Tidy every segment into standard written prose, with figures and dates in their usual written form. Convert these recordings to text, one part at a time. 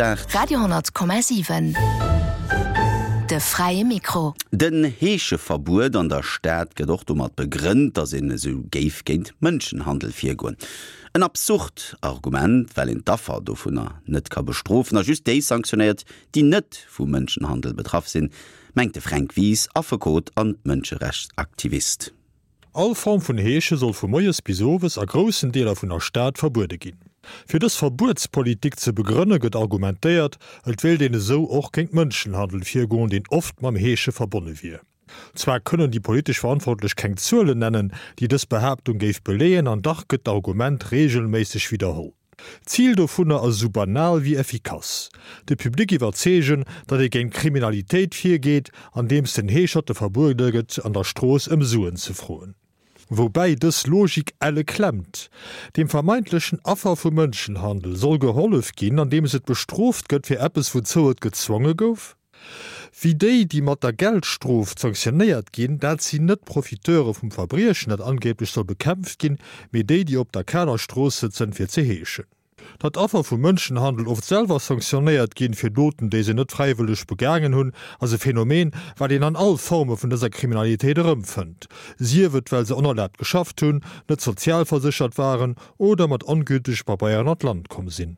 8. Radio 10,7 De fräie Mikro. Den Heescheverbuet an der Stad gëtt och domat begrënnt, datt een esou géif géint Mënschenhandel virgoen. En absurd Argument, well een d'Affer dovunner net ka bestrofen a just déi sanktionéiert, déi net vu Mënschenhandel betraff sinn, mengt de Fränk Wies, Affekot an Mënscherechtsaktivist. All Form vun Heesche soll vu moies bis owes a groussen Deeler vun der Stad verbuede ginn. Fir dës Verbuetspolitik ze begrënne gëtt argumentéiert, et wéilt een esou och géint Mënschenhandel virgoen, deen oft mam Heesche verbonne wier. Zwar kënnen déi politesch Verantwortlech keng Zuelen nennen, déi dës Behaaptung géif beleeën, an dach gëtt d'Argument reegelméisseg widderholl. D'Zil dovunner ass esou banal wéi effikass, de Public iwwerzeegen, datt ee géint Kriminalitéit virgeet, andeems den Heescherte verbuede gëtt, an der Strooss ëm Suen ze froen. Woubäi dës Logik elle klemmt. Dem vermeintlechen Affer vu Mënschenhandel soll gehollef ginn, andeems et bestrooft gëtt fir eppes, wouzou et gezwonge gouf. Wéi déi, déi mat der Geldstrof sanktionéiert ginn, dat sinn net d'Profiteure vum Verbriechen, dat angeeblech soll bekämpft ginn, mee déi, déi op der kaler Strooss sëtzen, fir ze heeschen. Datt Affer vu Mënschenhandel oft selwer sanktionéiert ginn, fir Doten, déi se net fräiwëlleg begaangen hunn, ass e Phänomen, wat een an all Forme vun dëser Kriminalitéit erëmfënnt, sief et well se onerlaabt geschafft hunn, net sozialverséchert waren oder mat ongültege Pabeieren an d'Land komm sinn.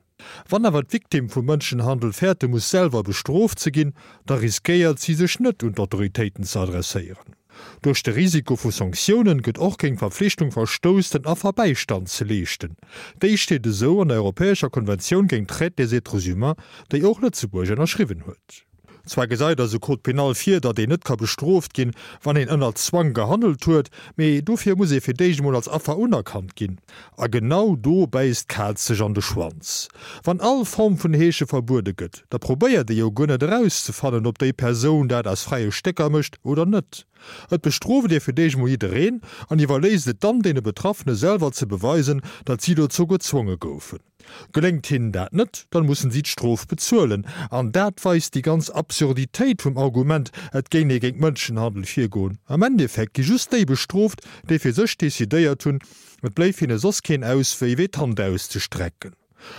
Wann awer d'Victime vum Mënschenhandel fäerte muss selwer bestrooft ze ginn, da riskéiert si sech net un d'Autoritéiten ze adresséieren. Duerch de Risiko vu Sanktiounen gëtt och géint d'Verpflichtung verstouss, den Affer Bäistand ze leeschten. Déi steet esou an der Europäescher Konventioun géint d'Traite des êtres humains, déi och Lëtzebuerg ënnerschriwwen huet. Zwar gesäit eise Code pénal vir, datt een net ka bestrooft ginn, wann een ënner Zwang gehandelt huet, mee dofir muss ee fir d'éischt emol als Affer unerkannt ginn. A genau do bäisst d'Kaz sech an de Schwanz. Wann all Form vun Heesche verbuede gëtt, da probéiert ee jo guer net erauszefannen, ob déi Persoun dat aus fräie Stécker mécht oder net. Et bestrooft ee fir d'éischt emol jiddereen an iwwerléisst et dann deene Betraffene selwer ze beweisen, datt si dozou gezwonge goufen. Geléngt hinnen dat net, dann mussen si d'Strof bezuelen. An dat weist déi ganz Absurditéit vum Argument, et géing ee géint Mënschenhandel virgoen. Am Endeffekt gi just déi bestrooft, déi fir sech decidéiert hunn, et bléif hinne soss keen Auswéi wéi d'Hand auszestrecken.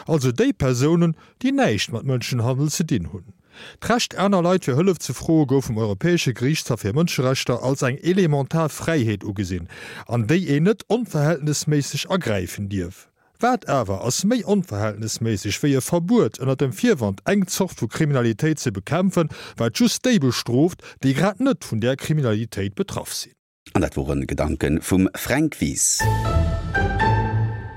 Also déi Persounen, déi näischt mat Mënschenhandel ze dinn hunn. D'Recht aner Leit fir Hëllef ze froe gouf vum Europäesche Geriichtshaff fir Mënscherechter als eng elementar Fräiheet ugesinn, an déi een net onverhältnesméisseg agräifen dierf. Wat awer ass méi onverhältnesméisseg wéi e Verbuet ënner dem Virwand eng Zort vu Kriminalitéit ze bekämpfen, wat just déi bestrooft, déi grad net vun där Kriminalitéit betraff sinn? An dat wore Gedanke vum Fränk Wies.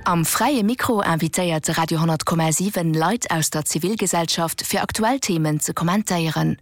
Am Fräie Mikro invitéiert de Radio 10,7 Leit aus der Zivilgesellschaft fir aktuell Themen ze kommentéieren.